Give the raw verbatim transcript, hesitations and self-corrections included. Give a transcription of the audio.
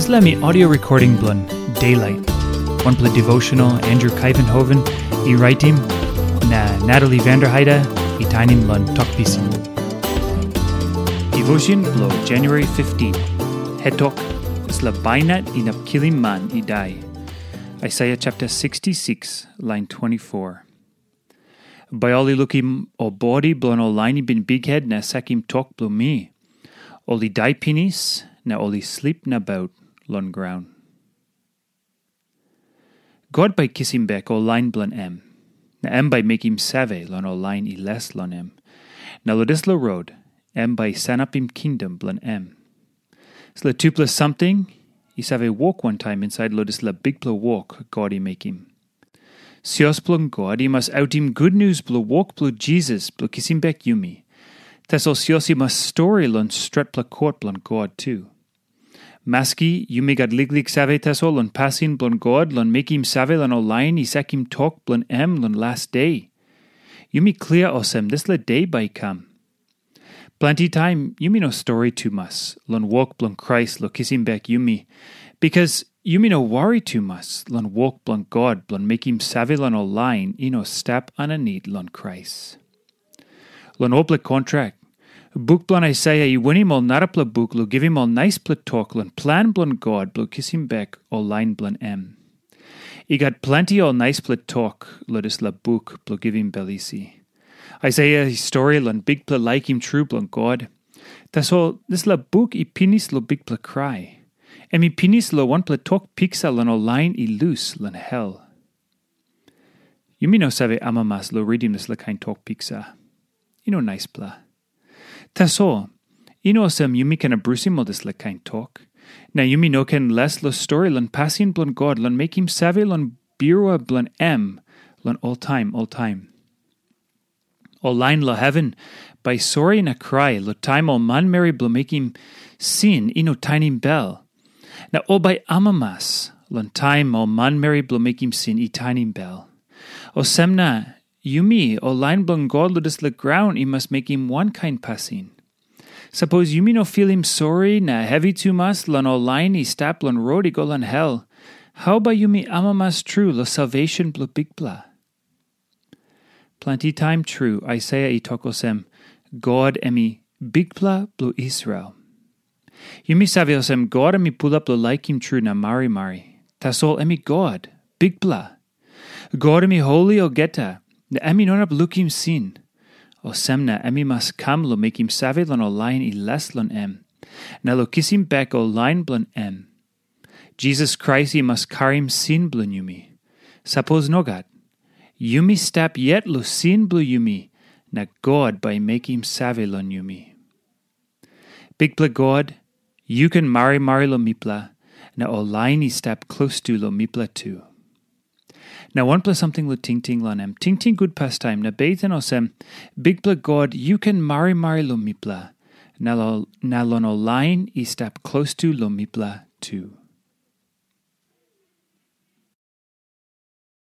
Dispela mi audio recording bilong Daylight, wanpela devotional Andrew Kaivenhoven i raitim, na Natalie Vanderheide i tainim long Tok Pisin. Devotion bilong January fifteen. Het tok, dispela bainat inap kilim man i dai. Isaiah chapter sixty-six, line twenty-four. Bai ol i lukim ol bodi bilong ol lain i bin bikhet na sakim tok bilong mi. Ol i dai pinis, na ol i slip nabaut long graun. God bai kisim bek ol lain bilong em, na em bai mekim save long ol lain i les long em. Na long dispela rot, em bai sanapim kingdom bilong em. Dispela tupela samting i save wok wantaim insait long dispela bikpela wok God i mekim. Sios bilong God i mas autim gutnius bilong wok bilong Jisas bilong kisim bek yumi. Tasol sios i mas stori long stretpela kot bilong God tu. Maski yumi gat liklik save tasol long pasin bilong God long mekim save long ol lain i sakim tok bilong em long las de. Yumi klia olsem dispela de bai i kam. Planti taim yumi no stori tumas long wok bilong Krais long kisim bek yumi, bikas yumi no wari tumas long wok bilong God bilong mekim save long ol lain i no stap aninit long Krais. Long olpela kontrak, buk bilong Aisaia i winim ol narapela buk long givim ol naispela tok long plan bilong God bilong kisim bek ol lain bilong em. I gat planti ol naispela tok long dispela buk bilong givim bel isi. Aisaia i stori long Bikpela laikim tru bilong God. Tasol dispela buk i pinis long bikpela krai. Em i pinis long wanpela tok piksa long ol lain i lus long hel. Yumi no save amamas long ritim dispela kain tok piksa. I no naispela. Tasol, i no olsem yumi ken abrusim ol dispela kain tok. Na yumi no ken les long stori long pasin bilong God long mekim save long birua bilong em long oltaim oltaim. Ol lain long heven bai sori na krai long taim ol manmeri bilong mekim sin i no tainim bel. Na ol bai amamas long taim ol manmeri bilong mekim sin i tainim bel. Olsem na, yumi ol lain bilong God long dispela graun i mas mekim wankain pasin. Sapos yumi no filim sori na hevi tumas long ol lain i stap long rot i go long hel, hau bai yumi amamas tru long salvesen bilong Bikpela? Planti taim tru Aisaia i tok olsem, God em i Bikpela bilong Israel. Yumi save olsem God em i pulap long laikim tru na marimari. Tasol em i God, Bikpela. God em i holi olgeta, na em i no inap lukim sin. Olsem na em i mas kam long mekim save long ol lain i les long em, na long kisim bek ol lain bilong em. Jisas Krais i mas karim sin bilong yumi. Sapos nogat, yumi stap yet long sin bilong yumi, na God bai i mekim save long yumi. Bikpela God, yu ken marimari long mipela, na ol lain i stap klostu long mipela tu. Na wanpela samting long tingting long em, tingting gut pastaim na beten olsem, Bikpela God, yu ken marimari long mipela, na long ol lain i stap klostu long mipela tu.